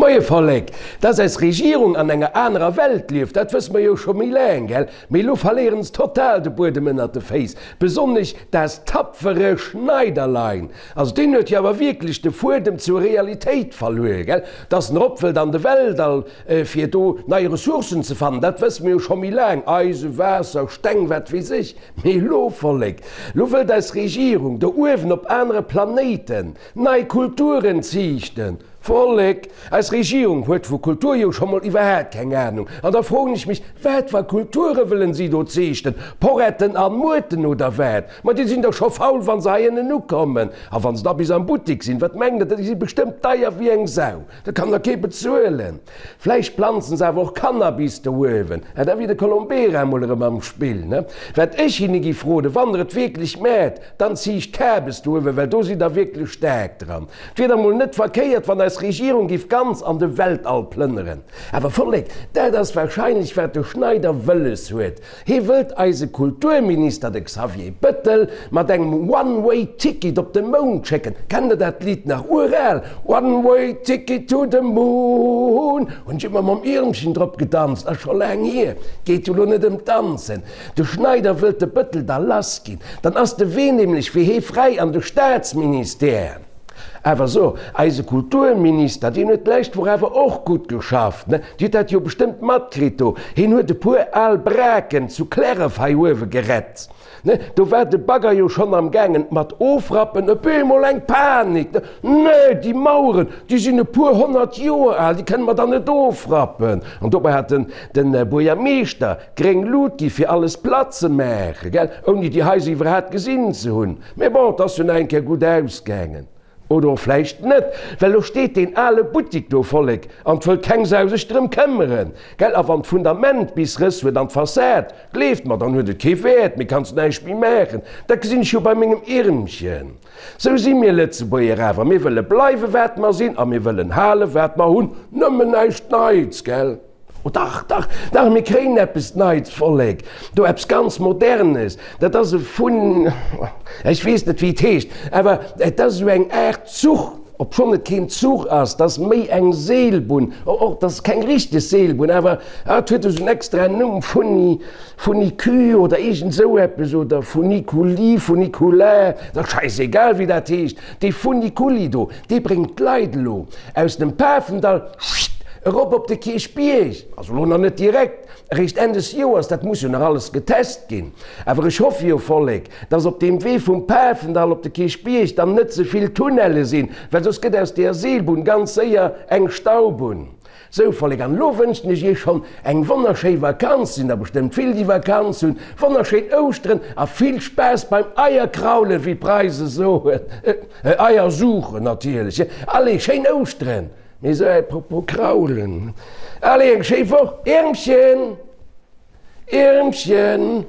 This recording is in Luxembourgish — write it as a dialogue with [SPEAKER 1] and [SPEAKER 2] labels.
[SPEAKER 1] Moie Vollek! Dass eis Regierung an enger anerer Welt lieft, dat wësse mer jo scho méi laang, gell? Mee elo verléieren se total de Buedem ënnert de Féiss, besonnesch das tapfere Schneiderlein. Also deen huet jo awer wierklech de Fuedem zur Realitéit verluer, gell? Dass en erop wëllt an de Weltall, fir do nei Ressourcen ze fannen, dat wësse mer jo scho méi laang, Eisen, Waasser, Steng, wat weess ech. Mee elo, Vollek, elo wëllt eis Regierung do uewen op anere Planéiten nei Kulturen ziichten. Vollek, eis Regierung huet vu Kultur jo scho mol iwwerhaat keng Ahnung. An da froen ech mech, wat fir Kulture wëllen si do zeechten? Poretten an Muerten oder wat? Ma déi sinn dach scho faul wann se hei ënnen ukommen. A wann se da bis am Buttik sinn, wat mengt der, déi si bestëmmt deier wéi eng Sau. Dat kann der kee bezuelen. Vläicht planzen se awer och Cannabis do uewen. Ah, da wier de Colombera emol erëm am Spill, ne? Wat ech hinne giff roden, wann der et wierklech maat, Dann ziicht Kabes do uewen, well do sidd der wierklech staark dran. Et wier da mol net verkéiert, wann eis Regierung giff ganz an de Weltall plënneren. Awer Vollek, dat ass wahrscheinlech wat de Schneider wëlles huet. Hee wëllt eise Kulturminister, de Xavier Bëttel, mat engem One Way Ticket op de Mound schécken. Kennt der dat Lidd nach? Ural! One Way Ticket to the Moon! Hunn ech ëmmer mam Iermchen drop gedanzt, ass scho laang hier. Geet jo lo net ëm d'Danzen. De Schneider wëllt de Bëttel da lass ginn, dann ass de Wee nämlech fir hee fräi an de Staatsministère. Awer so, eise Kulturminister, deen huet d'lescht Woch awer och gutt geschafft, ne? Dir hutt dat jo bestëmmt matkritt do, heen huet e puer al Braken zu Clärref hei uewe gerett. Ne, do war de Bagger jo schonn am gaangen mat ofrappen, op eemol eng Panik, ne, Nee, déi Maueren, déi sinn e puer 100 Joer al, déi kënne mer dann net ofrappen. An dobäi hat den, den Buergermeeschter gréng Lut gi fir alles platt ze maachen, gell, ouni déi Haiser iwwerhaapt gesinn ze hunn. Mee bon, et ass jo nach eng Kéier gutt ausgaangen. Oder och vläicht net, well elo steet deen ale Buttik do, Vollek, an 't wëllt keng Sau sech drëm këmmeren, gell? A wann d'Fundament bis Rëss huet an d'Fassad, gleeft mer, dann huet et kee Wäert méi, kanns näischt méi maachen. Dat gesinn ech jo bei mengem Irmchen. Sou si mir Lëtzebuerger awer, mir wëlle bleiwe wat mer sinn a mir wëllen hale wat mer hunn, nëmmen näischt Neits, gell? Oh dach, dach, dach, mir kréien eppes Neits, Vollek, do eppes ganz Modernes, dat ass e Fun, ech weess net wéi et heescht, awer et ass esou eng Aart Zuch, obschonn et keen Zuch ass, 't ass méi eng Seelbunn, och 't ass keng richteg Seelbunn, awer et huet esou en extraen Numm, Funi, Funicu oder iergend esou eppes, oder Funiculi, Funiculaire, dat ass schäisegal wéi dat heescht, dee Funiculi do, dee bréngt d'Leit elo aus dem Pafendall, Erop op de Kierchbierg, also lo nach net direkt, eréischt Enn des Joers, dat muss jo nach alles getest ginn. Awer ech hoffe jo, Vollek, dass op deem Wee vum Pafendall op de Kierchbierg dann net ze vill Tunnelle sinn, well soss gëtt aus deeër Seelbunn ganz séier eng Staubunn. Sou, Vollek, an elo wënschen ech iech schonn eng wonnerschéi Vakanz, sinn der bestëmmt vill déi Vakanz hunn, wonnerschéin Ouschteren a vill Spaass beim Eierkraulen, wéi d'Preise soen, Eier suchen natierlech. Allez, schéin Ouschteren! Mee sou apropos kraulen. Allez, eng schéi Woch, Iermchen! Iermchen!